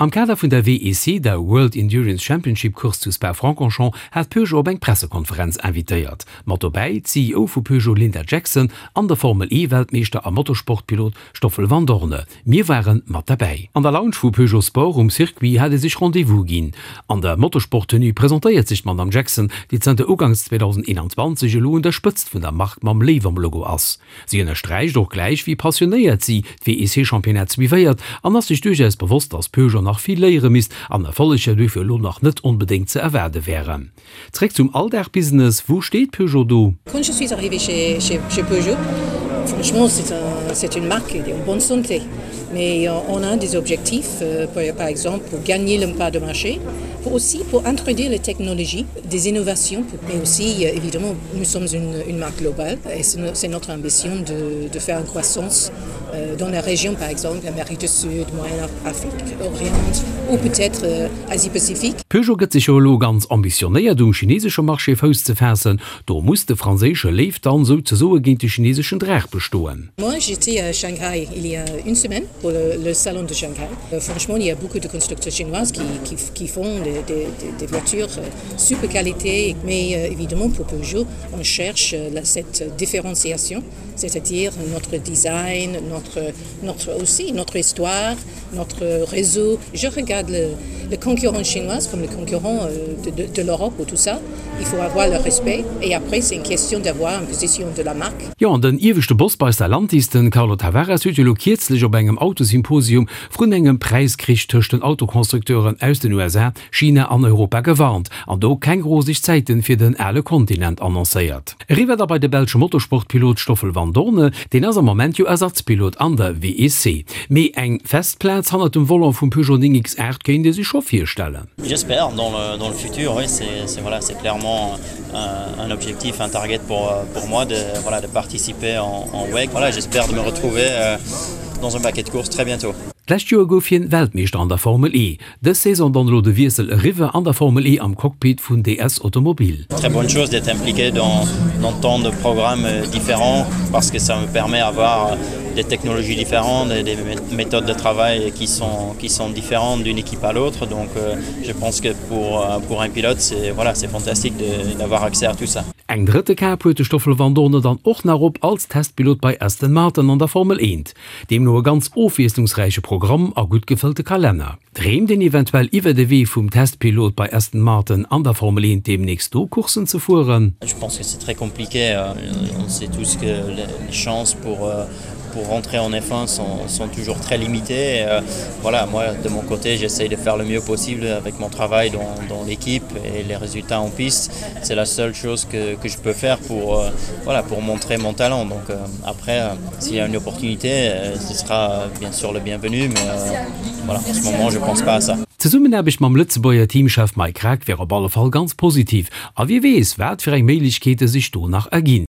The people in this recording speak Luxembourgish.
Am Kader vun der WEC, der World Endurance Championship Course zu Spa-Francorchamps, hat Peugeot op eng Pressekonferenz invitéiert. Mat dobäi d'CEO vu Peugeot Linda Jackson an de Formel E Weltmeeschter a Motorsportpilot Stoffel Vandoorne. Mir ware mat derbäi. An der Lounge vu Peugeot Sport um Circuit hat ee sech Rendez-vous ginn. An der Motorsport-Tenue presentéiert sech d'Madame Jackson, déi zanter uganks 2021 elo un der Spëtzt vun der Mark mam Léiw am Logo ass. Si ënnersträicht och gläich, wéi passionéiert si d'WEC-Championnat suivéiert an ass sech duerchaus bewosst, dass Peugeot nach vill léiere misst an Erfolleger duerfir elo nach net onbedéngt ze erwaarde wären. Zréck zum Alldag-Business, Wou steet Peugeot do? Quand je suis arrivée chez, chez, chez Peugeot, franchement c'est un, c'est une marque qui est en bonne santé. Mais on a des objectifs, euh, pour, par exemple pour gagner le pas de marché, pour aussi pour introduire les technologies, des innovations, mais aussi euh, évidemment nous sommes une, une marque globale et c'est notre ambition de, de faire une croissance euh, dans la région par exemple l'Amérique du Sud, Moyen-Afrique, Orient ou peut-être euh, Asie-Pacifique. Peugeot gëtt sech jo elo ganz ambitionéiert um chinesesche Marché Fouss ze faassen. Do muss de franséische Léiw dann souzesoe géint de chineseschen Draach bestoen. Moi j'étais à Shanghai il y a une semaine pour le, le salon de Shanghai. Euh, franchement il y a beaucoup de constructeurs chinoises qui, qui, qui font des, des, des voitures euh, super qualité mais euh, évidemment pour Peugeot on cherche euh, la, cette différenciation c'est-à-dire notre design, notre, notre aussi notre histoire, notre réseau. Je regarde le, le concurrent chinois comme le concurrent euh, de, de, de l'Europe ou tout ça. Il faut avoir le respect et après c'est une question d'avoir une position de la marque. Jo, an den ieweschte Boss bei Stellantis, den Carlo Tavares, huet jo elo kierzlech op engem Autosymposium vrun engem Präiskrich tëscht den Autoconstructeuren aus den USA, China an Europa gewarnt an do keng roseg Zäiten fir den ale Kontinent annoncéiert. Eriwwer da bei de belsche Motorsportpilot Stoffel Vandoorne, deen ass am Moment jo Ersatzpilot an der WEC. Mee eng fest Plaz hannert dem Volant vum Peugeot 9 X8 kéint ee sech scho virstellen. J'espère dans le, dans le futur, oui, c'est voilà, c'est clairement un, un objectif, un target pour, pour moi de, voilà, de participer en, en WEC. Voilà, j'espère de me retrouver euh, dans un paquet de courses très bientôt. D'lescht Joer gouf hien Weltmeeschter an der Formel E. Dës Saison dann elo de Wiessel eriwwer an der Formel E am Cockpit vun DS Automobil. Très bonne chose d'être impliqué dans, dans tant de programmes différents parce que ça me permet avoir des technologies différentes et des méthodes de travail qui sont, qui sont différentes d'une équipe à l'autre. Donc euh, je pense que pour, euh, pour un pilote, c'est voilà, fantastique d'avoir accès à tout ça. Eng drëtte Kap huet de Stoffel Vandoorne dann och nach op als Testpilot bei Aston Martin an der Formel 1. Deemno e ganz ofwiesslungsräiche Programm a gutt gefëllte Kalenner. Dreemt een eventuell iwwer de Wee vum Testpilot bei Aston Martin an der Formel 1 deemnächst do Courssen ze fueren? Je pense que c'est très compliqué, on sait tous que les chances pour pour rentrer en F1 sont, sont toujours très limitées. Euh, voilà, moi de mon côté, j'essaye de faire le mieux possible avec mon travail dans, dans l'équipe et les résultats en piste. C'est la seule chose que, que je peux faire pour, euh, voilà, pour montrer mon talent. Donc euh, après, euh, s'il y a une opportunité, euh, ce sera bien sûr le bienvenu, mais euh, voilà, en ce moment je pense pas à ça. D'Zesummenaarbecht mam Lëtzebuerger Teamchef Mike Krack wär op alle Fall ganz positiv a wie weess, wat fir eng Méiglechkeete sech do nach erginn.